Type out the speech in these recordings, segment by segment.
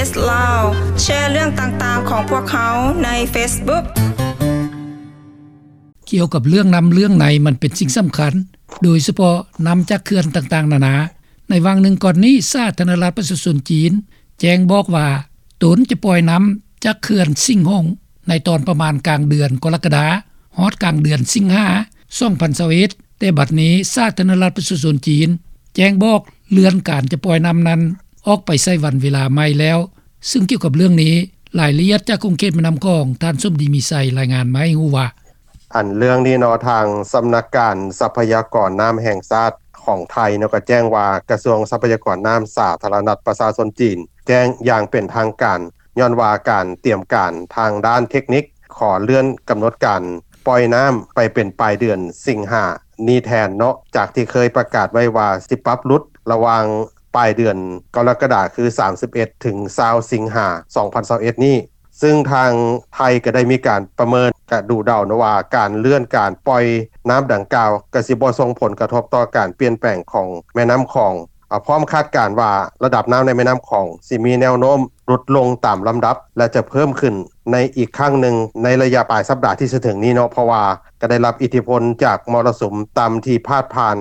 ເອສ ລາວ ແຊເລື່ອງຕ່າງໆຂອງພວກເຮົາໃນເຟສບຸກ. ກ່ຽວກັບເລື່ອງນ້ຳເລື່ອງໃນ ມັນເປັນສິ່ງສຳຄັນ, ໂດຍສະເພາະນ້ຳຈາກເຂື່ອນຕ່າງໆນານາ. ໃນຫວ່າງໜຶ່ງກ່ອນນີ້, ສາທາລະນະລັດປະຊາຊົນຈີນ ແຈ້ງບອກວ່າ ຕົນຈະປ່ອຍນ້ຳຈາກເຂື່ອນສິງຫົງ ໃນຕອນປະມານກາງເດືອນກໍລະກະດາ ຮອດກາງເດືອນສິງຫາ ສອງພັນຊາວເອັດ, ແຕ່ບັດນີ້ສາທາລະນະລັດປະຊາຊົນຈີນ ແຈ້ງບອກເລື່ອນການຈະປ່ອຍນ້ຳນັ້ນ ອອກໄປໃສ່ວັນເວລາໃໝ່ແລ້ວ. ຊຶ່ງກ່ຽວກັບເລື່ອງນີ້, ລາຍລະອຽດຈາກຂົງເຂດແມ່ນ້ຳຂອງ, ທ່ານສົມດີ ມີໄຊ ລາຍງານມາໃຫ້ຮູ້ວ່າ: ອັນເລື່ອງນີ້ເນາະ, ທາງສຳນັກການຊັບພະຍາກອນນ້ຳແຫ່ງຊາດຂອງໄທເນາະ ກໍແຈ້ງວ່າ ກະຊວງຊັບພະຍາກອນນ້ຳສາທາລະນະລັດປະຊາຊົນຈີນ ແຈ້ງຢ່າງເປັນທາງການ ຍ້ອນວ່າການຕຽມການທາງດ້ານເທັກນິກ ຂໍເລື່ອນກຳນົດການປ່ອຍນ້ຳໄປເປັນປາຍເດືອນສິງຫານີ້ແທນເນາະ, ຈາກທີ່ເຄີຍປະກາດໄວ້ວ່າ ຊິປັບຫຼຸດລະຫວ່າງປາຍເດືອນກໍລະກະດາ ຄື ສາມສິບເອັດ ເຖິງ ຊາວ ສິງຫາ ສອງພັນຊາວເອັດນີ້. ຊຶ່ງທາງໄທກໍໄດ້ມີການປະເມີນ ກະດູເດົາເນາະວ່າ ການເລື່ອນການປ່ອຍນ້ຳດັ່ງກ່າວ ກໍຊິບໍ່ສົ່ງຜົນກະທົບຕໍ່ການປ່ຽນແປງຂອງແມ່ນ້ຳຂອງ. ອາ ພ້ອມຄາດການວ່າ ລະດັບນ້ຳໃນແມ່ນ້ຳຂອງ ຊິມີແນວໂນ້ມຫຼຸດລົງຕາມລຳດັບ ແລະ ຈະເພີ່ມຂຶ້ນໃນອີກຄັ້ງໜຶ່ງ ໃນໄລຍະປາຍສັບດາທີ່ຈະເຖິງນີ້ເນາະ, ເພາະວ່າກໍໄດ້ຮັບອິດທິພົນຈາກມໍລະສຸມຕ່ຳທີ່ພາດຜ່ານ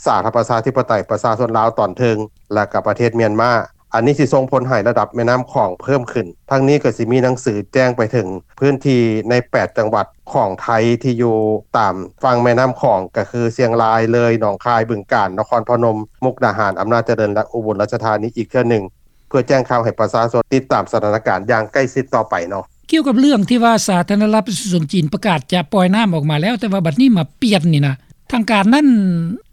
ສາທາລະນະລັດປະຊາທິປະໄຕປະຊາຊົນລາວຕອນເທິງ ແລະ ກະປະເທດມຽນມາ. ອັນນີ້ຊິສົ່ງຜົນໃຫ້ລະດັບແມ່ນ້ຳຂອງເພີ່ມຂຶ້ນ. ທັງນີ້ກໍຊິມີໜັງສືແຈ້ງໄປເຖິງພື້ນທີ່ໃນແປດຈັງຫວັດຂອງໄທທີ່ຢູ່ຕາມຝັ່ງແມ່ນ້ຳຂອງ ກໍຄື ຊຽງລາຍ, ເລີຍ, ໜອງຄາຍ, ບຶງການ, ນະຄອນພະນົມ, ມຸກດາຫານ, ອຳນາດຈະເລີນ ແລະ ອຸບົນລາຊະທານີອີກເທື່ອໜຶ່ງ ເພື່ອແຈ້ງຂ່າວໃຫ້ປະຊາຊົນຕິດຕາມສະຖານະການຢ່າງໃກ້ຊິດຕໍ່ໄປເນາະ. ກ່ຽວກັບເລື່ອງທີ່ວ່າສາທາລະນະລັດປະຊາຊົນຈີນປະກາດຈະປ່ອຍນ້ຳອອກມາແລ້ວ ແຕ່ວ່າບັດນີ້ມາປ່ຽນນີ້ນະ ທາງການນັ້ນ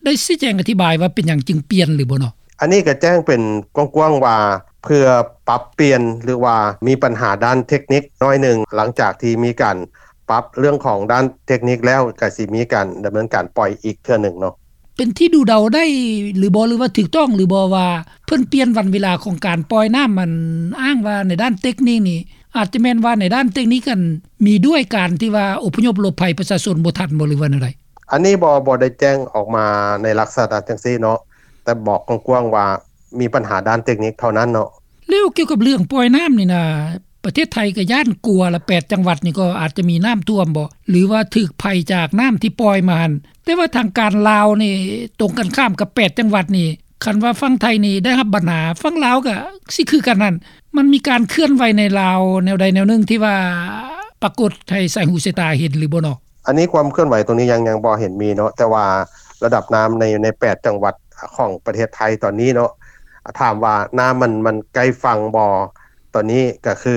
ໄດ້ຊີ້ແຈງອະທິບາຍວ່າເປັນຫຍັງຈຶ່ງປ່ຽນຫຼືບໍ່ເນາະ? ອັນນີ້ກໍແຈ້ງເປັນກວ້າງໆວ່າ ເພື່ອປັບປ່ຽນ ຫຼືວ່າມີບັນຫາດ້ານເທັກນິກໜ້ອຍໜຶ່ງ, ຫຼັງຈາກທີ່ມີການປັບເລື່ອງຂອງດ້ານເທັກນິກແລ້ວ ກໍຊິມີການດຳເນີນການປ່ອຍອີກເທື່ອໜຶ່ງເນາະ. ເປັນທີ່ດູເດົາໄດ້ຫຼືບໍ່ ຫຼືວ່າຖືກຕ້ອງຫຼືບໍ່ວ່າ ເພິ່ນປ່ຽນວັນເວລາຂອງການປ່ອຍນ້ຳ ອັນອ້າງວ່າໃນດ້ານເຕັກນິກນີ້ ອາດຈະແມ່ນວ່າໃນດ້ານເຕັກນິກຫັ້ນ ມີດ້ວຍການທີ່ວ່າອົບພະຍົບຫຼົບໄພປະຊາຊົນບໍ່ທັນບໍ່ ຫຼືວ່າແນວໃດ? ອັນນີ້ບໍ່ ບໍ່ໄດ້ແຈ້ງອອກມາໃນລັກສະນະຈັ່ງຊີ້ເນາະ, ແຕ່ບອກກວ້າງໆວ່າມີບັນຫາດ້ານເຕັກນິກເທົ່ານັ້ນເນາະ. ແລ້ວກ່ຽວກັບເລື່ອງປ່ອຍນ້ຳນີ້ນະ ປະເທດໄທກໍຢ້ານກົວລະ ແປດຈັງຫວັດນີ້ກໍອາດຈະມີນ້ຳຖ້ວມບໍ ຫຼືວ່າຖືກໄພຈາກນ້ຳທີ່ປ່ອຍມາຫັ້ນ? ແຕ່ວ່າທາງການລາວນີ້ ຕົງກັນຂ້າມກັບແປດຈັງຫວັດນີ້, ຄັນວ່າຝັ່ງໄທນີ້ໄດ້ຮັບບັນຫາ, ຝັ່ງລາວກໍຊິຄືກັນຫັ້ນ. ມັນມີການເຄື່ອນໄຫວໃນລາວແນວໃດແນວໜຶ່ງທີ່ວ່າປາກົດໃຫ້ສາຍຫູສາຍຕາເຫັນຫຼືບໍ່ເນາະ? ອັນນີ້ຄວາມເຄື່ອນໄຫວຕົງນີ້ຍັງ ຍັງບໍ່ເຫັນມີເນາະ, ແຕ່ວ່າລະດັບນ້ຳໃນ ໃນແປດຈັງຫວັດຂອງປະເທດໄທຕອນນີ້ເນາະ, ຖາມວ່ານ້ຳມັນ ມັນໃກ້ຝັ່ງບໍ່? ຕອນນີ້ກໍຄື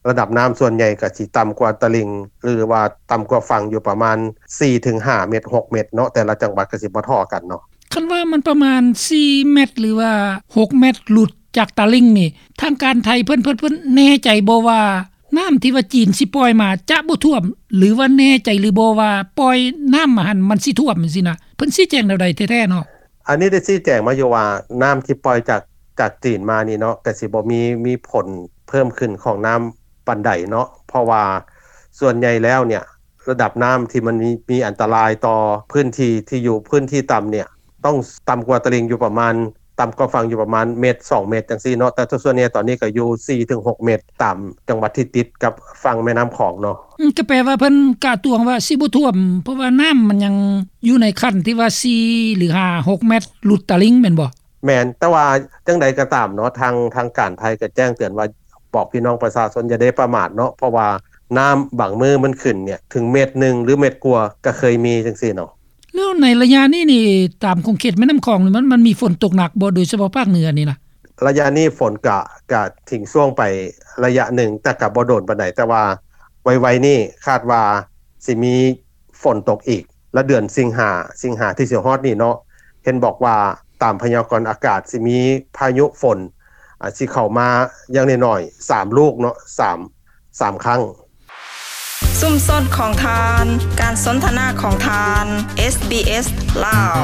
ລະດັບນ້ຳສ່ວນໃຫຍ່ກໍຊິຕ່ຳກວ່າຕະລິ່ງ ຫຼືວ່າຕ່ຳກວ່າຝັ່ງຢູ່ປະມານສີ່ເຖິງຫ້າເມັດ ຫົກເມັດເນາະ, ແຕ່ລະຈັງຫວັດກໍຊິບໍ່ທໍ່ກັນເນາະ. ຄັນວ່າມັນປະມານສີ່ເມັດ ຫຼືວ່າຫົກເມັດ ຫຼຸດຈາກຕະລິ່ງນີ້ ທາງການໄທເພິ່ນ ເພິ່ນ ເພິ່ນແນ່ໃຈບໍ່ວ່າ ນ້ຳທີ່ວ່າຈີນຊິປ່ອຍມາຈະບໍ່ຖ້ວມ ຫຼືວ່າແນ່ໃຈຫຼືບໍ່ວ່າປ່ອຍນ້ຳມາຫັ້ນມັນຊິຖ້ວມຈັ່ງຊີ້ນະ? ເພິ່ນຊີ້ແຈງແນວໃດແທ້ໆເນາະ? ອັນນີ້ໄດ້ຊີ້ແຈງມາຢູ່ວ່າ ນ້ຳທີ່ປ່ອຍຈາກ ຈາກຈີນມານີ້ເນາະ ກະຊິບໍ່ມີ ມີຜົນເພີ່ມຂຶ້ນຂອງນ້ຳປານໃດເນາະ, ເພາະວ່າສ່ວນໃຫຍ່ແລ້ວເນຍ ລະດັບນ້ຳທີ່ມັນມີ ມີອັນຕະລາຍຕໍ່ພື້ນທີ່ທີ່ຢູ່ພື້ນທີ່ຕ່ຳເນຍ ຕ້ອງຕ່ຳກວ່າຕະລິ່ງຢູ່ປະມານ ຕ່ຳກວ່າຝັ່ງຢູ່ປະມານເມັດ ສອງເມັດຈັ່ງຊີ້ເນາະ, ແຕ່ສ່ວນໃຫຍ່ຕອນນີ້ກໍຢູ່ສີ່ເຖິງຫົກເມັດ ຕາມຈັງຫວັດທີ່ຕິດກັບຝັ່ງແມ່ນ້ຳຂອງເນາະ. ອືມ ກໍແປວ່າເພິ່ນກະຕວງວ່າຊິບໍ່ຖ້ວມ ເພາະວ່ານ້ຳມັນຍັງຢູ່ໃນຂັ້ນທີ່ວ່າສີ່ ຫຼື ຫ້າ ຫົກເມັດ ຫຼຸດຕະລິ່ງແມ່ນບໍ່? ແມ່ນ, ແຕ່ວ່າຈັ່ງໃດກໍຕາມເນາະ ທາງ ທາງການໄທກໍແຈ້ງເຕືອນວ່າ ບອກພີ່ນ້ອງປະຊາຊົນຢ່າໄດ້ປະໝາດເນາະ, ເພາະວ່ານ້ຳບາງມື້ມັນຂຶ້ນເນຍ ເຖິງເມັດໜຶ່ງ ຫຼື ເມັດກວ່າກໍເຄີຍມີຈັ່ງຊີ້ເນາະ. ແລ້ວໃນໄລຍະນີ້ນີ້ ຕາມຂົງເຂດແມ່ນ້ຳຂອງນີ້ ມັນ ມັນມີຝົນຕົກໜັກບໍ່ ໂດຍສະເພາະພາກເໜືອນີ້ນະ? ໄລຍະນີ້ຝົນກະ ກະຖິ້ມຊ່ວງໄປໄລຍະໜຶ່ງ ແຕ່ກະບໍ່ໂດນປານໃດ, ແຕ່ວ່າໄວໆນີ້ຄາດວ່າຊິມີຝົນຕົກອີກ ລະເດືອນສິງຫາ ສິງຫາທີ່ຊິຮອດນີ້ເນາະ, ເຫັນບອກວ່າຕາມພະຍາກອນອາກາດຊິມີພາຍຸຝົນ ອາ ຊິເຂົ້າມາຢ່າງໜ້ອຍໆ ສາມລູກເນາະ ສາມ ສາມຄັ້ງ. ຊຸມຊົນຂອງທ່ານ, ການສົນທະນາຂອງທ່ານ, ເອສບີເອສ ລາວ.